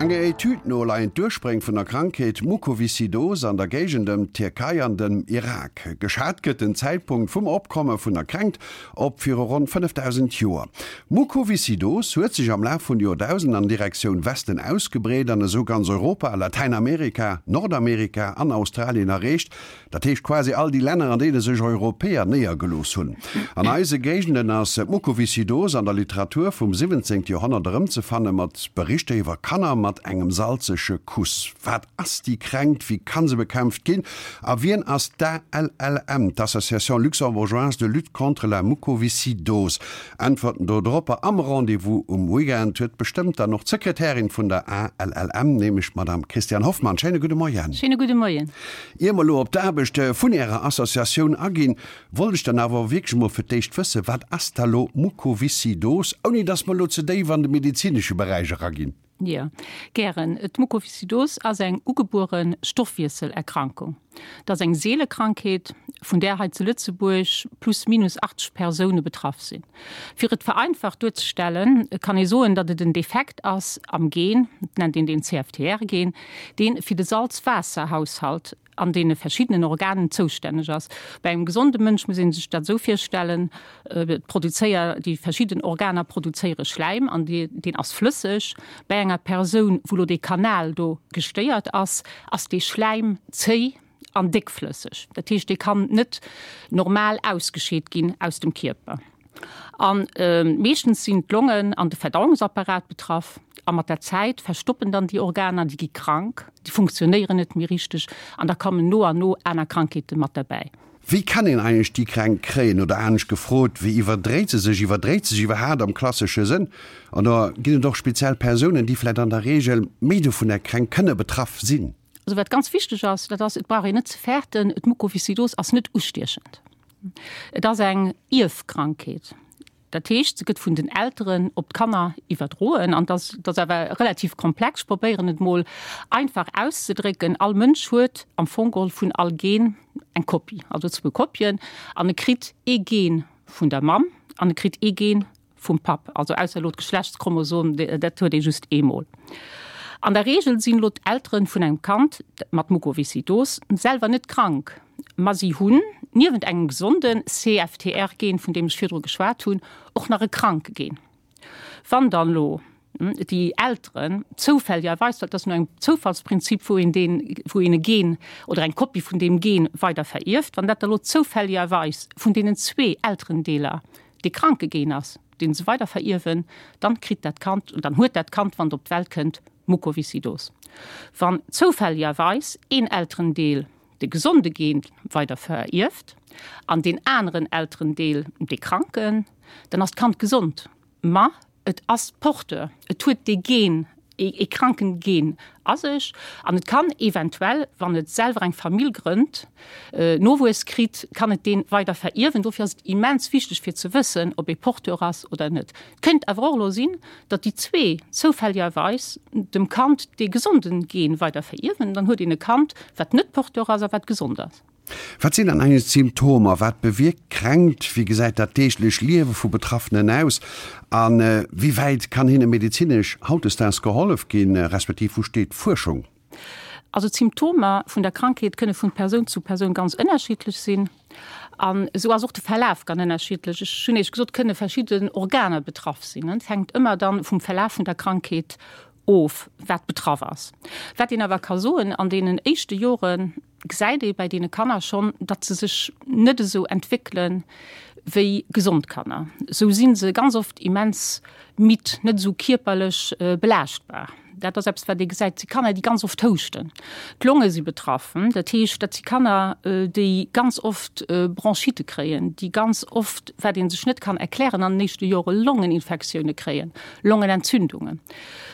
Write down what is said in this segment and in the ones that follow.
Enger Etüd no leien d'Urspréng vun der Krankheet Mukoviszidose an der Géigend ëm d'Tierkei an dem Irak. Geschat gëtt den Zäitpunkt vum Opkomme vun der Kränkt op viru ronn 5.000 Joer. Mukoviszidose huet sech am Laf vun de Joerdausenden an Direktioun Westen ausgebreet an esou ganz Europa, Latäinamerika, Nordamerika an Australien erreecht. Dat heescht quasi all déi Länner, an deene sech Europäer néiergelooss hunn. An eise Géigenden ass d'Mukoviszidose an der Literatur vum 17. Joerhonnert erëmzefanne mat Berichter iwwer Kanner mat engem salzege Kuss. Wat ass déi Kränkt, wéi kann se bekämpft ginn a wien ass d'ALLM, d'Association luxembourgeoise de lutte contre la mucoviscidose? Äntwerten do dropper am Rendez-vous um Weekend huet bestëmmt dann och d'Sekretärin vun der ALLM, nämlech d'Madame Christiane Hoffmann. Schéine gudde Moien. Schéine gudde Moien. Ier mer elo op d'Aarbecht vun Ärer Associatioun aginn, wollt ech dann awer wierklech emol fir d'éischt wëssen, Wat ass da lo Mukoviszidose, ouni dass mer elo ze déif an de medezinesche Beräich eraginn? Jo, gären. D'Mukoviszidose ass eng ugebuere Stoffwiesselerkrankung. Et ass eng seele Krankheet, vun där hei zu Lëtzebuerg plus minus 80 Persoune betraff sinn. Fir et vereinfacht duerzestellen, kann ee soen, datt et en Defekt ass am Gen, et nennt een deen CFTR-Gen, dee fir de Salz-Waasser-Haushalt an deene verschiddenen Organen zoustänneg ass. Bei engem gesonde Mënsch muss ee sech dat esou virstellen, et produzéier, déi verschidden Organer produzéiere Schläim an deen ass flësseg. Bei enger Persoun, wou elo dee Kanal do gestéiert ass, ass dee Schläim zéi an déckflësseg. Dat heescht, dee kann net normal ausgescheet ginn aus dem Kierper. A meeschtens sinn d'Longen an de Verdauungsapparat betraff. A mat der Zäit verstoppen dann déi Organer, déi gi krank, déi funktionéieren net méi richteg an da kommen no an no aner Krankheete mat derbäi. Wéi kann een eigentlech déi Kränkt kréien? Oder anescht gefrot, wéi iwwerdréit se sech? Iwwerdréit se sech iwwerhaapt am klassesche Sënn? Oder ginn et och speziell Persounen, déi vläicht an der Reegel méi dovun Kränkt kënne betraff sinn? Also wat ganz wichteg ass, dat ass, et brauch een net ze fäerten, d'Mukoviszidos ass net ustiechend. Et ass eng Ierfkrankheet. Dat heescht, se gëtt vun den Elteren op d'Kanner iwwerdroen. An dat ass awer relativ komplex. Ech probéieren et mol einfach auszedrécken, All Mënsch huet am Fong geholl vun all Gen eng Kopie, also zwou Kopien. An e kritt ee Gen vun der Mamm an e kritt ee Gen vum Papp, also ausser elo d'Geschlechtschromosom, dat huet ee just eemol. An der Reegel sinn elo d'Eltere vun engem Kand mat Mukoviszidos selwer net krank, ma si hunn niewent engem gesonde CFTR-Gen, vun deem ech virdru geschwat hunn, och nach e kranke Gen. Wann dann elo déi Elteren zoufälligerweis, well et ass no engem Zoufallsprinzip, wou een deen, wou een e Gen oder eng Kopie vun deem Gen weider verierft, wann dat da elo zoufälligerweis vun deenen zwee Elterendeeler dee kranke Gen ass, deen se weider verierwen, dann kritt dat Kand, dann huet dat Kand, wann et op d'Welt kënnt, Mukoviszidose. Wann zoufälligerweis een Elterendeel de gesonde Gen weider verierft an deen aneren Elterendeel dee kranken, dann ass d'Kand gesond, ma Et ass Porteur, et huet dee Gen, ee kranken Gen a sech an et kann eventuell, wann et selwer eng Famill grënnt, Nowuess kritt, kann et dee weider verierwen. Dofir ass et immens wichteg fir ze wëssen, ob ee Porteur ass oder net. Et kéint awer och elo sinn, datt déi zwee zoufälligerweis dem Kand dee gesonden Gen weider verierwen, dann huet een e Kand, wat net Porteur ass a wat gesond ass. Wat sinn dann eigentlech d'Symptomer? Wat bewierkt d'Kränkt? Wéi gesäit dat deeglech Liewe vu Betraffenen aus? A wéi wäit kann hinne medezinesch hautdesdaags gehollef ginn, respektiv wou steet d'Fuerschung? Also d'Symptomer vun der Krankheet kënne vun Persoun zu Persoun ganz ënnerschiddlech sinn. An esou ass och de Verlaf ganz ënnerschiddlech. Ech hunn Iech gesot, et kënne verschidden Organer betraff sinn. Et hänkt ëmmer dann vum Verlaf vun der Krankheet of, wat betraff ass. Wat een awer ka soen, an deenen éischte Joren, gesäit ee bei deene Kanner schonn, datt se sech net esou entwéckele wéi gesond Kanner. Esou si se ganz oft immens midd, net esou kierperlech belaaschtbar. Dat ass eppes, wat ee gesäit. Et si Kanner, déi ganz oft houschten. D'Longe si betraff. Dat heescht, dat si Kanner, déi ganz oft Bronchitte kréien, déi ganz oft, wat ee sech net kann erklären, an den éischte Jore Longeninfektioune kréien, Longenentzündungen.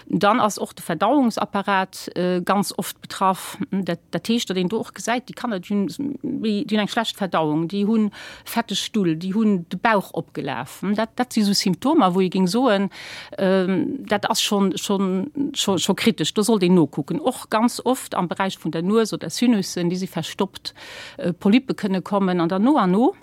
Dann ass och de Verdauungsapparat ganz oft betraff. Dat, dat heescht, datt een do och gesäit, déi Kanner, déi hunn méi, déi hunn eng schlecht Verdauung, déi hu fetteg Stull, déi hunn de Bauch opgelaf. Dat, dat si sou Symptomer, wou ee géing soen, dat ass schonn, schonn, scho, scho kritesch, do sollt een nokucken. Och ganz oft am Beräich vun der Nues oder Sinussen, déi si verstoppt, Polyppe kënne kommen an dann no an no.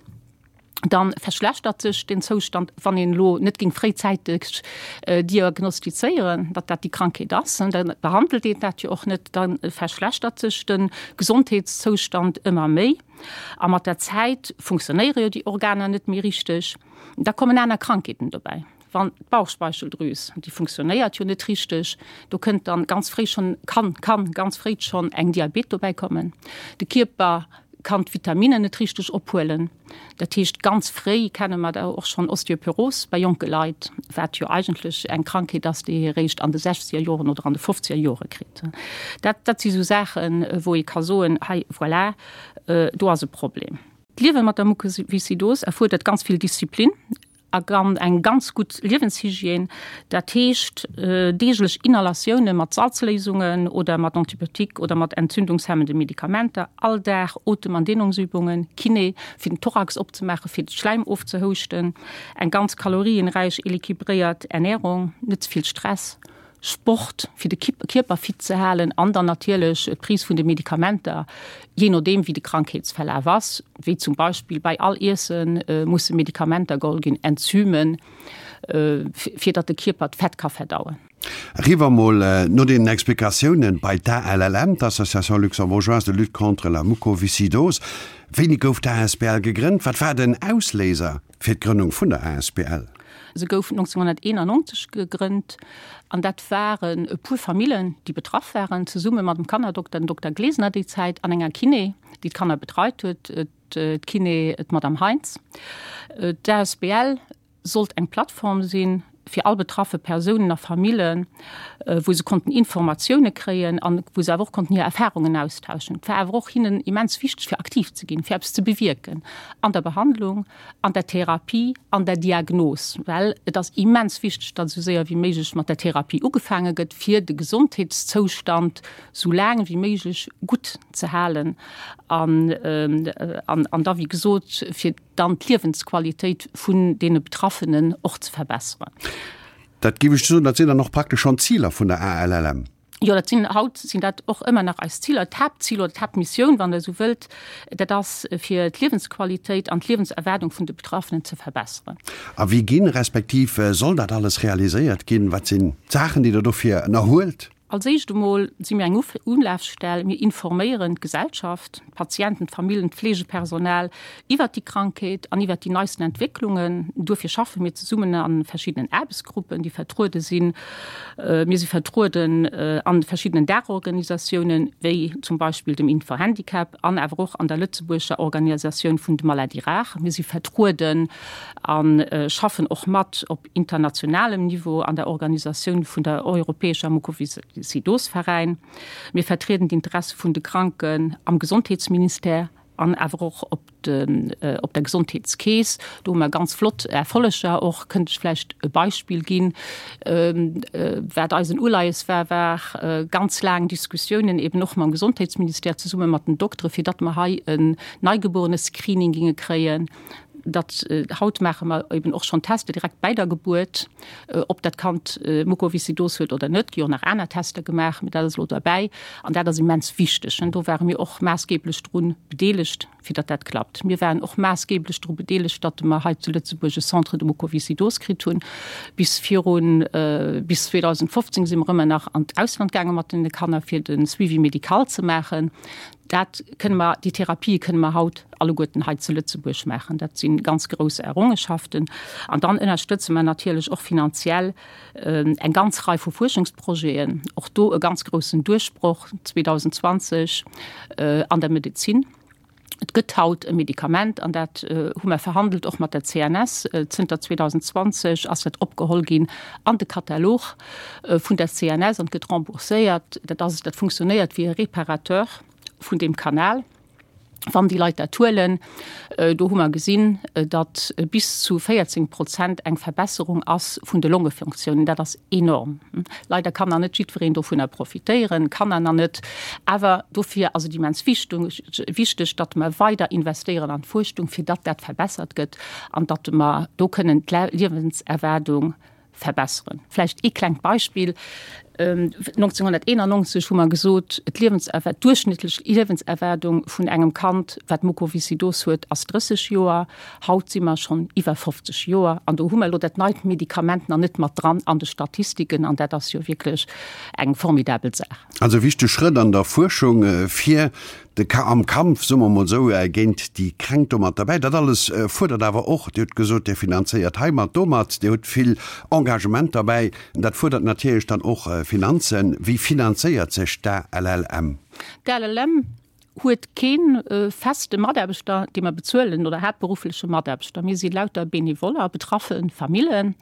Dann verschlechtert sech den Zoustand, wann een elo net géing fréizäiteg diagnostizéieren, datt dat déi Krankheet ass, da behandelt een dat jo och net, da verschlechtert sech de Gesondheetszoustand ëmmer méi a mat der Zäit funktionéiere jo déi Organer net méi richteg. Da kommen aner Krankheeten dobäi. Wann d'Bauchspeicheldrüs, déi funktionéiert jo net richteg, do kënnt dann ganz fréi schonn, kann, kann ganz fréi schonn eng Diabet dobäi kommen. De Kierper kann d'Vitaminen net richteg ophuelen. Dat heescht, ganz fréi kenne mer da och schonn Osteoporos bei jonke Leit, wat jo eigentlech eng Krankheet ass, déi ee eréischt an de sechzeger Joren oder an de fofzeger Jore kritt. Dat, dat si sou Saachen, wou ee ka soen, hei, voilà, do ass e Problem. D'Liewe mat der Mukoviszidos erfuerdert ganz vill Disziplin. A eng ganz gutt Liewenshygiène, dat heescht deeglech Inhalatioune mat Salzléisungen oder mat Antibiotique oder mat entzündungshemmende Medikamenter, all Dag Otem an Dehnungsübungen, Kiné fir den Thorax opzemaachen, fir de Schläim ofzehouschten, eng ganz kalorienräich, éliquibréiert Ernährung, net ze vill Stress. Sport, fir de Kierper fit ze halen an dann natierlech d'Prise vun de Medikamenter, jee nodeem wéi de Krankheetsverlaf ass, wéi zum Beispill bei all Iesse musse Medikamenter geholl ginn, Enzymen, fir datt de Kierper d'Fett ka verdauen. Eriwwer mol no deenen Explikatiounen bei d'ALLM, d'Association luxembourgeoise de lutte contre la mucoviscidose. Wéini gouf d'ASBL gegrënnt? Wat war den Ausléiser? Fir d'Grënnung vun der asbl. Se gouf 1991 gegrënnt an dat waren e puer Famillen, déi betraff waren, zesumme mat dem Kannerdokter, dem Dokter Glesener déi Zäit, an enger Kiné, déi d'Kanner betreit huet, d'Kiné, d'Madame Heintz. D'asbl sollt eng Plattform sinn fir all betraffe Persounen a Famillen, wou se konnten Informatioune kréien an wou se awer och konnten hir Erfarungen austauschen. Et war awer och hinnen immens wichteg, fir aktiv ze ginn, fir eppes ze bewierken an der Behandlung, an der Therapie, an der Diagnos, well et ass immens wichteg, datt esou séier wéi méiglech mat der Therapie ugefaange gëtt, fir de Gesondheetszoustand esou laang wéi méiglech gutt ze halen an an da wéi gesot fir dann d'Liewensqualitéit vun deene Betraffenen och ze verbesseren. Dat géif ech soen, dat sinn dann och praktesch schonn d'Ziler vun der ALLM. Jo, dat sinn, haut sinn dat och ëmmer nach eis Ziler. D'Haaptzil oder d'Haaptmissioun, wann Der esou wëllt, dat ass, fir d'Liewensqualitéit an d'Liewenserwaardung vun de Betraffenen ze verbesseren. A wéi ginn, respektiv soll dat alles realiséiert ginn? Wat sinn d'Saachen, déi Der dofir ënnerhuelt? Als éischt emol si mir eng Ulafstell. Mir informéieren d'Gesellschaft, d'Patienten, d'Famillen, d'Fleegepersonal iwwert déi Krankheet an iwwert déi neisten Entwécklungen. Duerfir schaffe mir zesummen a verschiddenen Aarbechtsgruppen, déi vertruede sinn. Mir si vertrueden a verschiddenen Daachorganisatiounen, wéi zum Beispill dem Infohandicap an awer och an der lëtzebuergescher Organisatioun vun de Maladies rares. Mir si vertrueden a schaffen och mat op internationalem Niveau an der Organisatioun vun der Europäescher Mukoviszidosveräin. Mir vertrieden d'Interesse vun de Kranken am Gesondheetsministère an awer och op op der Gesondheetskeess. Do hu mer ganz flott Erfolleger och. Kënnt ech vläicht e Beispill ginn, wat eisen Uleies war, war ganz laang Diskussiounen eben och mam Gesondheetsministère zesumme mat den Doktere fir datt mer hei en Neigebuerenescreening ginge kréien. Dat haut maache mer eben och schonn Tester direkt bäi der Gebuert, ob dat Kand Mukoviszidose huet oder net. Gi och nach aner Tester gemaach, mee dat ass elo derbäi an dat ass immens wichteg. Do ware mir och maassgeblech dru bedeelegt, fir datt dat klappt. Mir waren och maassgeblech dru bedeelegt, datt mer hei zu Lëtzebuerg e Centre de Mukoviszidose kritt hunn. Bis virun, bis 2015 si mer ëmmer nach an d'Ausland gaange mat den Kanner, fir de Suivi médical ze maachen. Dat kënne mer, déi Therapië kënne mer haut alleguerten hei zu Lëtzebuerg maachen. Dat si ganz grouss Errungenschaften. An dann ënnerstëtze mer natierlech och finanziell eng ganz Rei vu Fuerschungsprojeten. Och do e ganz groussen Duerchbroch 2020 an der Medezin. Et gëtt haut e Medikament, an dat hu mer verhandelt och mat der CNS. Zënter 2020 ass dat opgeholl ginn an de Katalog vun der CNS an gëtt rembourséiert. Dat ass, dat funktionéiert wéi e Réparateur vun deem Kanal, wann déi Leit dat huelen. Do hu mer gesinn, datt bis zu 14 Prozent eng Verbesserung ass vun de Longefunktiounen. Dat ass enorm. Leider kann nach net jiddwereen dovunner profitéieren, Kanner nach net. Awer dofir ass et immens wichteg, datt mer weider investéieren an d'Fuerschung, fir datt dat verbessert gëtt an datt mer do kënnen d'Liewenserwaardung verbesseren. Vläicht ee klengt Beispill. 1991 hu mer gesot, d'Liewenserwaart, d'duerchschnëttlech Liewenserwaardung vun engem Kand, wat Mukoviszidose huet, ass 30 Joer. Haut si mer schonn iwwer 50 Joer an do hu mer elo dat neit Medikament nach net mat dran an de Statistiken an dat ass jo wierklech eng formidabel Saach. Also e wichtege Schrëtt an der Fuerschung fir de Ka am Kampf, soe mer emol esou, géint déi Kränkt do mat derbäi. Dat alles fuerdert awer och, Dir hutt gesot, Dir finanzéiert heimat, domat, Dir hutt vill Engagement derbäi, dat fuerdert natierlech dann och Finanzen. Wéi finanzéiert sech d'ALLM? D'ALLM huet kee feste Mataarbechter, dee mer bezuelen, oder haaptberuffleche Mataarbechter. Mir si lauter Benevoller, betraffe Famillen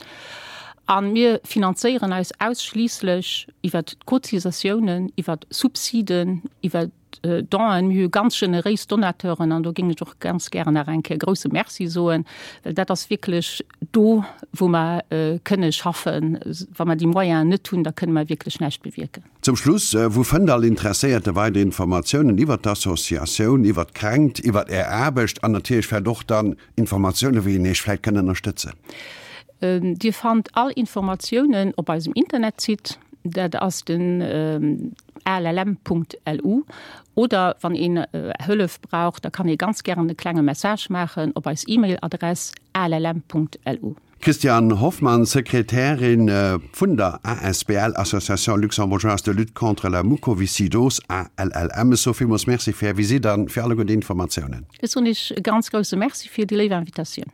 a mir finanzéieren eis ausschliisslech iwwert d'Cotisatiounen, iwwert Subsiden, iwwert Donen. Mir hu ganz generéis Donateuren an do géing ech och ganz gären nach eng Kéier e grouse Merci soen, well dat ass wierklech do, wou mer kënne schaffen. Wa mer déi Moyenen net hunn, da kënne mer wierklech näischt bewierken. Zum Schluss, Wou fënnt all Interesséierte weider Informatiounen iwwert d'Associatioun, iwwert d'Kränkt, iwwert Är Aarbecht an natierlech vläicht och dann Informatiounen, wéi een Iech vläicht kënn ënnerstëtzen? Dir fannt all Informatiounen op eisem Internetsite, dat ass den allm.lu. Oder wann een Hëllef brauch, da kann ee ganz gären e klenge Message maachen op eis E-Mail-Adress allm.lu. Christiane Hoffmann, Sekretärin vun der asbl Association Luxembourgeoise de Lutte contre la Mucoviscidose, ALLM. Ech soe villmools Merci fir Är Visitt an fir alleguer déi Informatiounen. Ech soen Iech e ganz grousse Merci fir déi léif Invitatioun.